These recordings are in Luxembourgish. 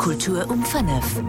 Kultur um 5.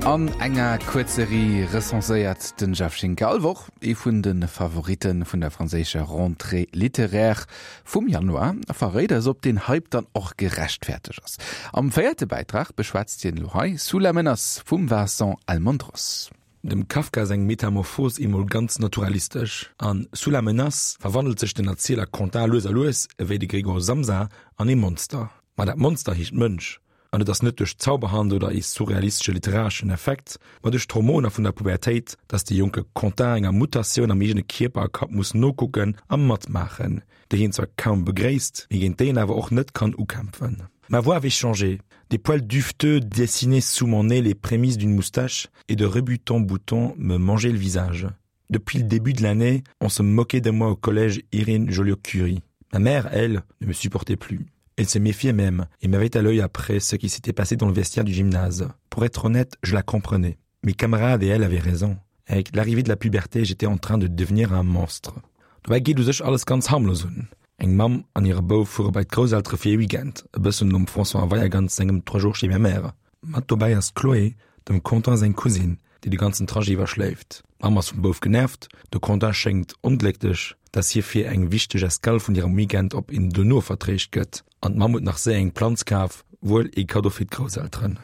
An enger Kuerzserie recenséiert den Jeff Schinker all Woch ee vun de Favoritte vun der franséischer Rentrée littéraire vum Januar a verréit eis, ob den Hype dann och gerechtfertegt ass. Am véierte Bäitrag beschwätzt hien elo hei Sous la menace vum Vincent Almondros. Dem Kafka seng Metamorphos emol ganz naturalistesch. An Sous la menace verwandelt sech den Erzieler Quentin lues a lues, ewéi de Gregor Samsa, an ee Monster. Ma dat Monster heescht Mënsch, an et ass net duerch Zauberhand oder ee surrealistesche literareschen Effekt, ma duerch d'Hormoner vun der Pubertéit, dass de jonke Quentin enger Mutatioun am eegene Kierper a Kapp muss nokucken a matmaachen, déi hien zwar kaum begréisst, mee géint déi en awer och net kann ukämpfen. Ma voix avait changé, des poils duveteux dessinaient sous mon nez les prémices d'une moustache et de rebutants boutons me mangeaient le visage. Depuis le début de l'année, on se moquait de moi au collège Irene Joliot-Curie. Ma mère, elle, ne me supportait plus. Elle se méfiait même et m'avait à l'œil après ce qui s'était passé dans le vestiaire du gymnase. Pour être honnête, je la comprenais. Mes camarades et elle avaient raison. Avec l'arrivée de la puberté, j'étais en train de devenir un monstre. Dobäi geet u sech alles ganz harmlos un. Eng Mamm an hire Bouf fuere bei d'Grousseltere fir ee Weekend, e bëssen nom François Weyergans sengem Trois jours chez ma mère. Mat dobäi ass d'Chloé, dem Quentin seng Cousine, déi de ganzen Trajet iwwer schléift. D'Mamm ass vum Bouf genervt, de Quentin schéngt onglécklech, dass hie fir eng wichteg Escale vun hirem Weekend op een dono vertréischt gëtt. An d'Mamm huet nach séier eng Planz kaf, wuel ee Kaddo fir d'Grousselteren.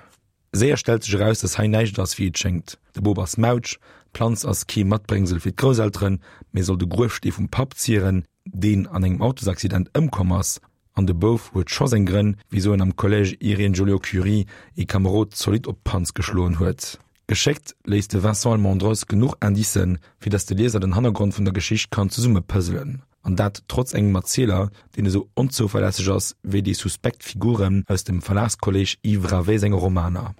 Séier stellt sech eraus, dass hei näischt ass, wéi et schéngt. De Bop ass mautsch, d'Planz ass kee Matbréngsel fir d'Grousselteren, mee soll de Gruefstee vum Papp zieren, deen an engem Autosaccident ëmkomm ass. An de Bouf huet scho seng Grënn, wisou en am Collège Irène Joliot-Curie ee Kamerod zolidd op d'Panz geschloen huet. Geschéckt léisst de Vincent Almendros genuch Indicen, fir dass de Lieser den Hannergrond vun der Geschicht kann zesummepëzzelen. An dat trotz engem Erzieler, deen esou onzouverlässeg ass wéi déi suspekt Figuren aus dem Verlagskolleg Yves Ravé senge Romaner.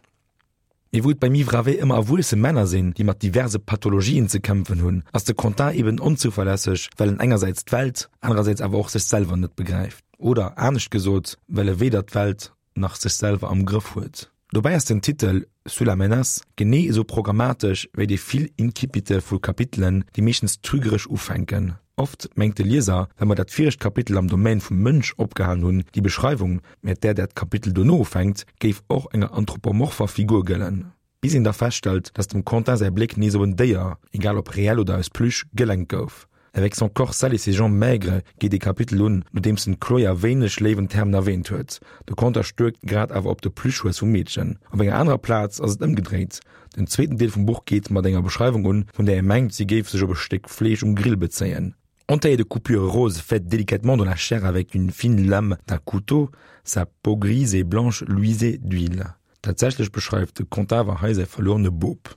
Mee wou et beim Yves Ravé ëmmer erwuesse Männer sinn, déi mat diverse Pathologien ze kämpfen hunn, ass de Quentin eben onzouverlässeg, well en engersäits d'Welt, anerersäits awer och sech selwer net begräift. Oder anescht gesot, well e weder d'Welt nach sech selwer am Grëff huet. Dobäi ass den Titel Sous la menace genee esou programmatesch wéi déi vill Incipite vu Kapitelen, déi meeschtens trügeresch ufänken. Oft mengt de Lieser, well mer dat viregt Kapitel am Domaine vum Mënsch opgehalen hunn, déi Beschreiwung, mat där dat Kapitel dono ufänkt, géif och enger anthropomorpher Figur gëllen. Bis een da feststellt, dass dem Quentin säi Bléck nees op en Déier, egal ob reell oder aus Plüsch, gelenkt gouf. Avec son corps sale et ses jambes maigres geet ee Kapitel un, nodeems en d'Chloé a wéineg léiwen Termen erwäänt huet. De Quentin stuerkt grad awer op de Plüschhues vum Meedchen. Op enger anerer Plaz ass et ëmgedréit, Den zweeten Deel vum Buch geet mat enger Beschreiwung un, vun där ee mengt, si géif sech op e Stéck Fleesch um Grill bezéien. Entaillée de coupures roses faites délicatement dans la chair avec une fine lame d'un couteau, sa peau grise et blanche luisait d'huile. Tatsächlech beschreift de Conte awer hei säi verluerene Bop.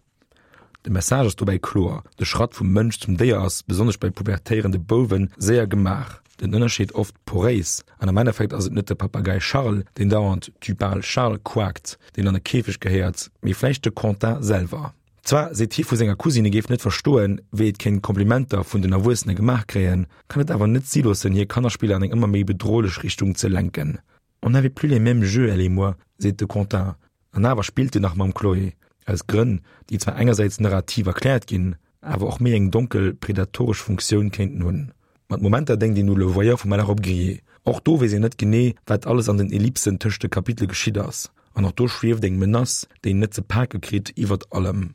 De Message ass dobäi kloer, De Schratt vum Mënsch zum Déier ass, besonnesch bei pubertéierende Bouwen, séier gemaach, den Ënnerscheed oft poréis, an am Endeffekt ass et net de Papagei Charles, deen dauernd Tu parles Charles quakt, deen an e Käfeg gehéiert, mee vläicht de Quentin selwer. Zwar seet hie vu senger Cousine, e géif net verstoen, wéi et kéint Komplimenter vun den Erwuessene gemaach kréien, kann et awer net si loossen, hir Kannerspiller an eng ëmmer méi bedrohlech Richtung ze lenken. On n'avait plus les mêmes jeux, elle et moi, seet de Quentin. An awer spillt en nach mam Chloé. Aus Grënn, déi zwar engersäits narrativ erkläert ginn, awer och méi eng donkel, predatoresch Funktioun kéinten hunn. Mat Momenter denkt een u Le Voyeur vum Malherbe Grier. Och do weess een net genee, wat alles an den Ellipsen tëscht de Kapitele geschitt ass. An och do schwieft eng Menace, déi een net ze pake kritt, iwwert allem.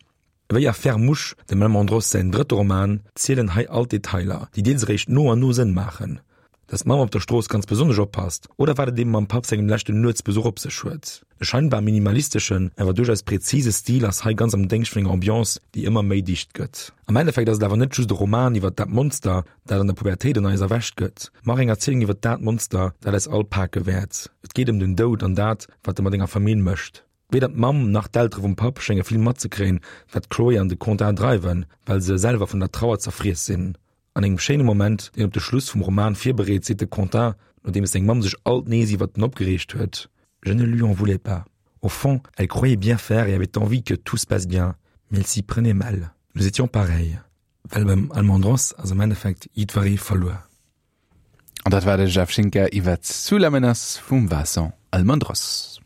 Ewéi a Fermouche, dem Almendros säin drëtte Roman, zielen hei all d'Detailer, déi deels eréischt no an no Sënn maachen. Dass d'Mamm op der Strooss ganz besonnesch oppasst, oder wat et ebe mam Papp sengem leschten Nuetsbesuch op sech huet. E scheinbar minimalisteschen, awer duerchaus präzise Stil ass hei ganz am Déngscht vun enger Ambiance, déi ëmmer méi dicht gëtt. Am Endeffekt ass et awer net just e Roman iwwer dat Monster, dat an der Pubertéit an eis erwächt gëtt, ma och eng Erzielung iwwer dat Monster, dat eis all pake wäert. Et geet ëm den Doud an dat, wat e mat enger Famill mécht. Weder d'Mamm nach d'Eltere vum Papp schénge vill matzekréien, wat d'Chloé an de Quentin dreiwen, well se selwer vun der Trauer zerfriess sinn. An engem schéine Moment, deen op de Schluss vum Roman virbereet, seet de Quentin, nodeems seng Mamm sech alt nees iwwert en opgereegt huet, Je ne lui en voulais pas. Au fond, elle croyait bien faire et avait envie que tout se passe bien, mais elle s'y prenait mal. Nous étions pareils. Well beim Almendros ass am Endeffekt jiddweree verluer. An dat war de Jeff Schinker iwwer Sous la menace vum Vincent Almendros.